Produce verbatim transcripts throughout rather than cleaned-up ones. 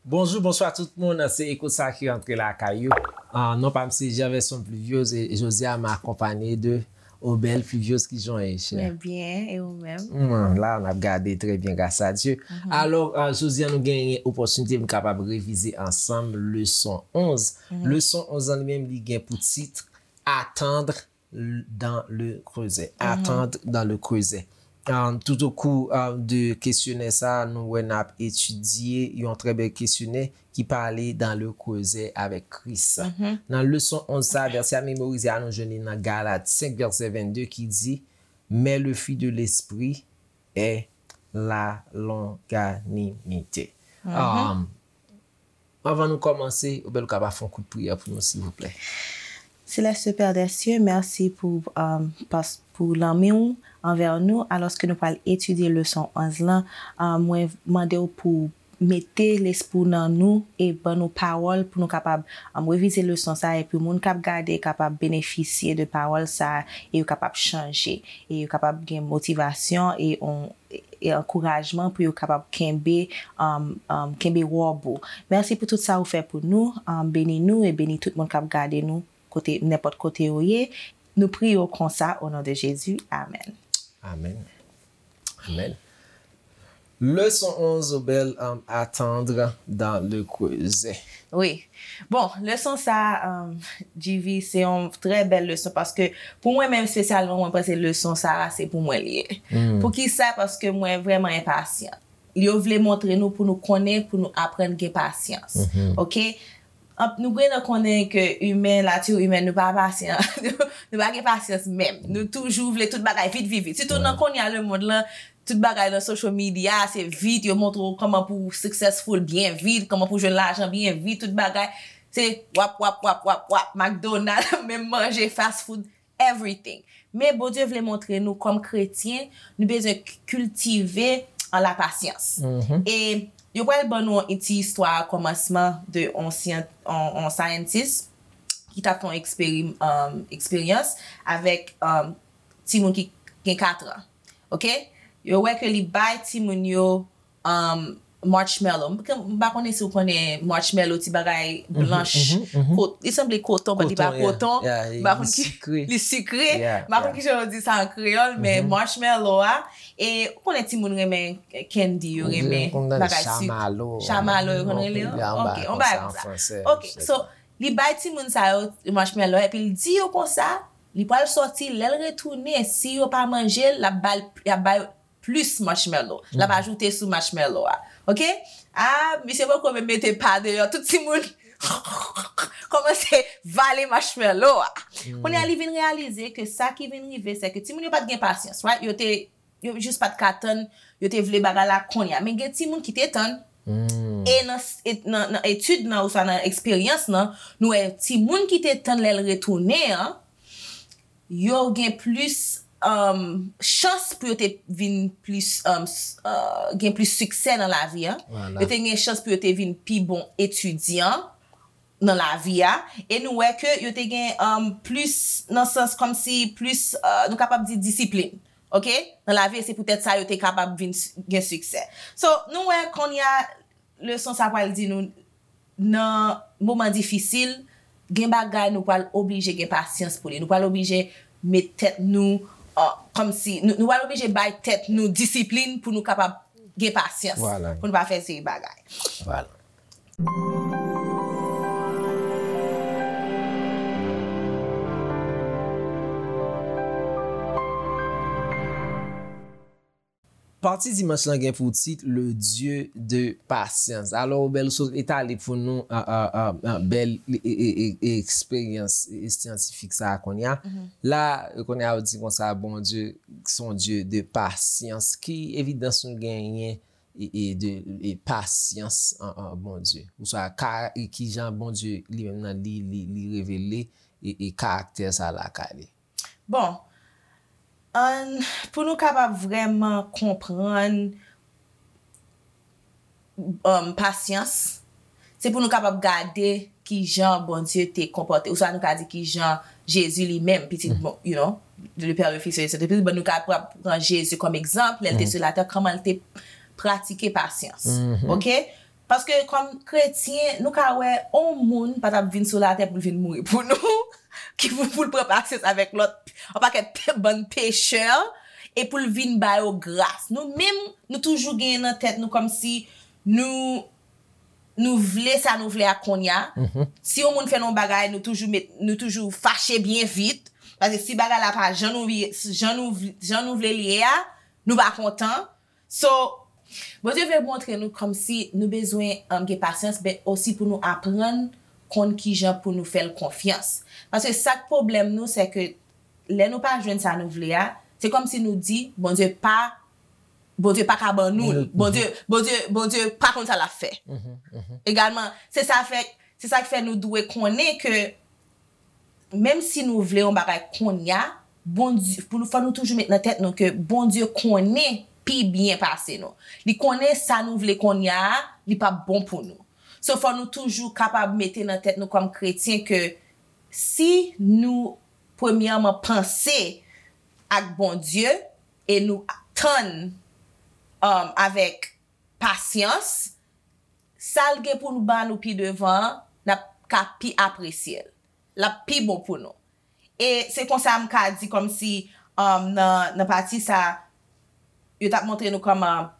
Bonjou, bonswa tout moun, se Eko sa ki rantre lakay ou. Ah, non pa m se Gerverson Pluviose e jodi a m akonpanye de Obel Pluviose. Ki jan w ye, chè? Mwen byen, e ou menm? Mwen la, n ap gade trè byen, gras a Dye. Alò, ah, jodi a nou genyen opòtinite pou n kapab revize ansanm leson onz. Leson onz lan li menm, li gen pou tit Attendre dans le creuset. Attendre dans le creuset. Um, tout au cours, um, de kesyonè sa, nou wè n ap etidye yon trè bèl kesyonè ki pale dans le creuset avec Christ. Nan leson onz sa, vèsè a memorize a, nou jwenn li nan Galat senk, vèsè vennde, ki di, Mais le fruit de l'esprit est la longanimité. Um, Anvan nou kòmanse, Obel, ou kapab fè yon kout priyè pou nou, silvouplè? Seleste Père des cieux, mèsi pou, um, pas, pou lanmou w anvè nou. Alòske nou pral etidye leson onz lan, um, mwen mande w pou mete lespri w nan nou e ban nou pawòl pou nou kapab, um, revize leson sa a, epi moun k ap gade kapab benefisye de pawòl sa a e yo kapab chanje e yo kapab gen motivasyon e on e ankourajman pou yo kapab kenbe, um, um, kenbe wòb ou. Mèsi pou tout sa ou fè pou nou. Um, beni nou e beni tout moun k ap gade nou kote, nenpòt kote yo ye. Nou priye w konsa, o non de Jezi. Amèn. Amèn. Amèn. Leson onz, Obel, um, Attendre dans le creuset. Wi. Bon, leson sa, um, G V, se yon trè bèl leson paske pou mwen menm espesyalman, mwen panse leson sa a se pou mwen li ye. Poukisa? Paske mwen vrèman enpasyan. Yo vle montre nou pou nou konnen, pou nou aprann gen pasyans. Oke? Anp-, nou gen nan konnen ke imen, nati imen, nou pa pasyan. Nou pa gen pasyans menm. Nou toujou vle tout bagay vit, vit, vit. Sitou nan kounye a lemonn lan, tout bagay nan social media, se vit, yo montre w kòman pou w successful byen vit, kòman pou w jwenn lajan byen vit, tout bagay. Se wap, wap, wap, wap, wap, McDonald, menm manje, fast food, everything. Men Bondye vle montre nou kòm kretyen, nou bezwen k-, kiltive an lapasyans. E yo pral ban nou yon ti istwa a kòmansman de on syan-, on, on scientist ki t ap fè yon eksperi-, um, eksperyans avèk, um, timoun ki gen katran. Oke? Yo wè ke li bay timoun yo, um, marshmallow. M, m pa konnen si w konnen marshmallow, ti bagay blanch. Ko-, li sanble koton, but li pa koton. M pa konn ki, li sikre. M pa konn ki jan yo di sa an kreyòl, men marshmallow a, e ou konnen timoun renmen candy, yo renmen bagay sik. Chamallow, yo konn rele yo? Ok, on bagay konsa. Ok, so, li bay timoun sa yo marshmallow, epi li di yo konsa, li pral sòti, lè l retounen, si yo pa manje l, l ap ba l, l ap ba yo plis marshmallow. L ap ajoute sou marshmallow a. Oke? Ah, misye poko menm mete pa deyò. Tout timoun kòmanse vale marshmallow a. Kounye a, li vin reyalize ke sa ki vin rive, se ke timoun yo pa t gen pasyans, right? Yo te, yo jis pa t ka tann, yo te vle bagay la kounye a. Men gen timoun ki te tann. E nan, e nan, nan etid nan, oswa nan eksperyans nan, nou wè timoun ki te tann lè l retounen an, yo gen plis, um, chans pou yo te vin plis, um, s-, uh, gen plis siksè nan lavi a. Yo te gen chans pou yo te vin pi bon etidyan nan lavi a. E nou wè ke yo te gen, um, plis, nan sans kòmsi plis, uh, nou kapab di disiplin. Oke? Nan lavi, e se poutèt sa yo te kapab vin s-, gen siksè. So, nou wè kounye a, leson sa pral di nou, nan moman difisil, gen bagay nou pral oblije gen pasyans pou li. Nou pral oblije met tèt nou, uh, kòmsi, nou, nou pral oblije bay tèt nou disiplin pou nou kapab gen pasyans. Pou nou pa fè seri bagay. Pati dimanch lan gen pou tit Le Dieu de patience. Alò, Obel sot etale pou nou, a, a, a, a, bèl e, e, e, e, eksperyans, e, syantifik sa a kounye a. La, kounye a, yo di konsa, Bondye se yon Dye de pasyans. Ki evidans nou genyen e, e de, e pasyans an, an Bondye? Oswa, ka, e kijan Bondye li menm nan li, li, li revele e, e karaktè sa lakay li? Bon, ann, pou nou kapab vrèman konprann, um, pasyans, se pou nou kapab gade kijan Bondye te konpòte, oswa nou ka di kijan Jezi li menm, pitit, bon, you know, le Père, le Fils et le Saint-Esprit, bon, nou kapab pran Jezi kòm egzanp, lè l te sou latè, kòman l te pratike pasyans. Oke? Paske kòm kretyen, nou ka wè, yon moun pa t ap vin sou latè pou l vin mouri pou nou, ki pou, pou l pran pasyans avèk lòt, yon pakèt pe- bann pechè, e pou l vin ba yo gras. Nou menm, nou toujou genyen nan tèt nou kòmsi nou, nou vle sa nou vle a kounye a. Si yon moun fè nou yon bagay, nou toujou met, nou toujou fache byen vit. Paske si bagay la pa jan nou, jan nou, jan nou vle li ye a, nou pa kontan. So, Bondye vle montre nou kòmsi nou bezwen um, gen pasyans, men osi pou nou aprann konn kijan pou nou fè l konfyans. Paske sa k pwoblèm nou, se ke lè nou pa jwenn sa nou vle a, se kòmsi nou di, Bondye pa, Bondye pa ka ban nou l. Bondye, Bondye, Bondye pa konn sa l ap fè. Egalman, se sa fè, se sa k fè nou dwe konnen ke menm si nou vle yon bagay kounye a, Bondye, pou nou, fò nou toujou met nan tèt nou ke Bondye konnen pi byen pase nou. Li konnen sa nou vle kounye a, li p ap bon pou nou. So, fò nou toujou kapab mete nan tèt nou kòm kretyen ke si nou, premyèman, panse ak Bondye e nou tann um, avèk pasyans, sa l gen pou l ba nou pi devan an, n ap ka pi apresye l. L ap pi bon pou nou. E se konsa m ka di kòmsi um, nan, nan pati sa, yo t ap montre nou kòman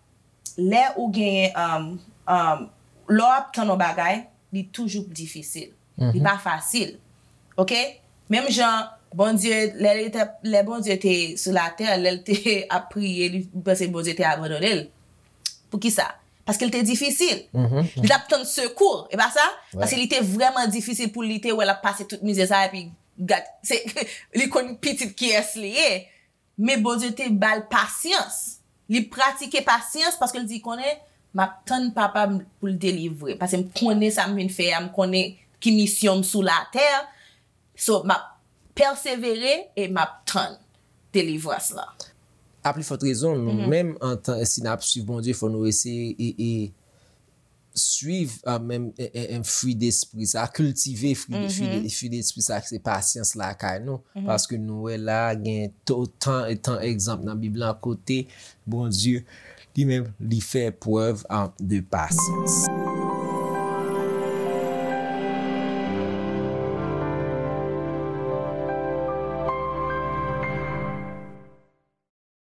lè ou genyen, um, um, lè w ap tann yon bagay, li toujou difisil. Li pa fasil. Oke? Menm jan Bondye, lè, li te, lè Bondye te sou latè, lè l te ap priye, li panse Bondye te abandone l. Poukisa? Paske l te difisil. Li t ap tann sekou, e pa sa? Paske li te vrèman difisil pou li te wè l ap pase tout mizè sa, epi gad, se, li konn pitit kiyès li ye. Men Bondye te ba l pasyans. Li pratike pasyans paske l di konnen, "M ap tann papa m pou l delivre m. Paske m konnen sa m vin fè a, m konnen ki misyon m sou latè. So, m ap pèsevere e m ap tann delivrans lan." A pli fòt rezon, nou menm antan, si n ap swiv Bondye, fò nou eseye e, e swiv a menm e, e, e, fwi despri sa, kiltive fwi, fwi, fwi despri sa, se pasyans lakay nou. Paske nou wè la, gen to- tan, tan egzanp nan Bib lan kote Bondye li menm li fè prèv a, de pasyans.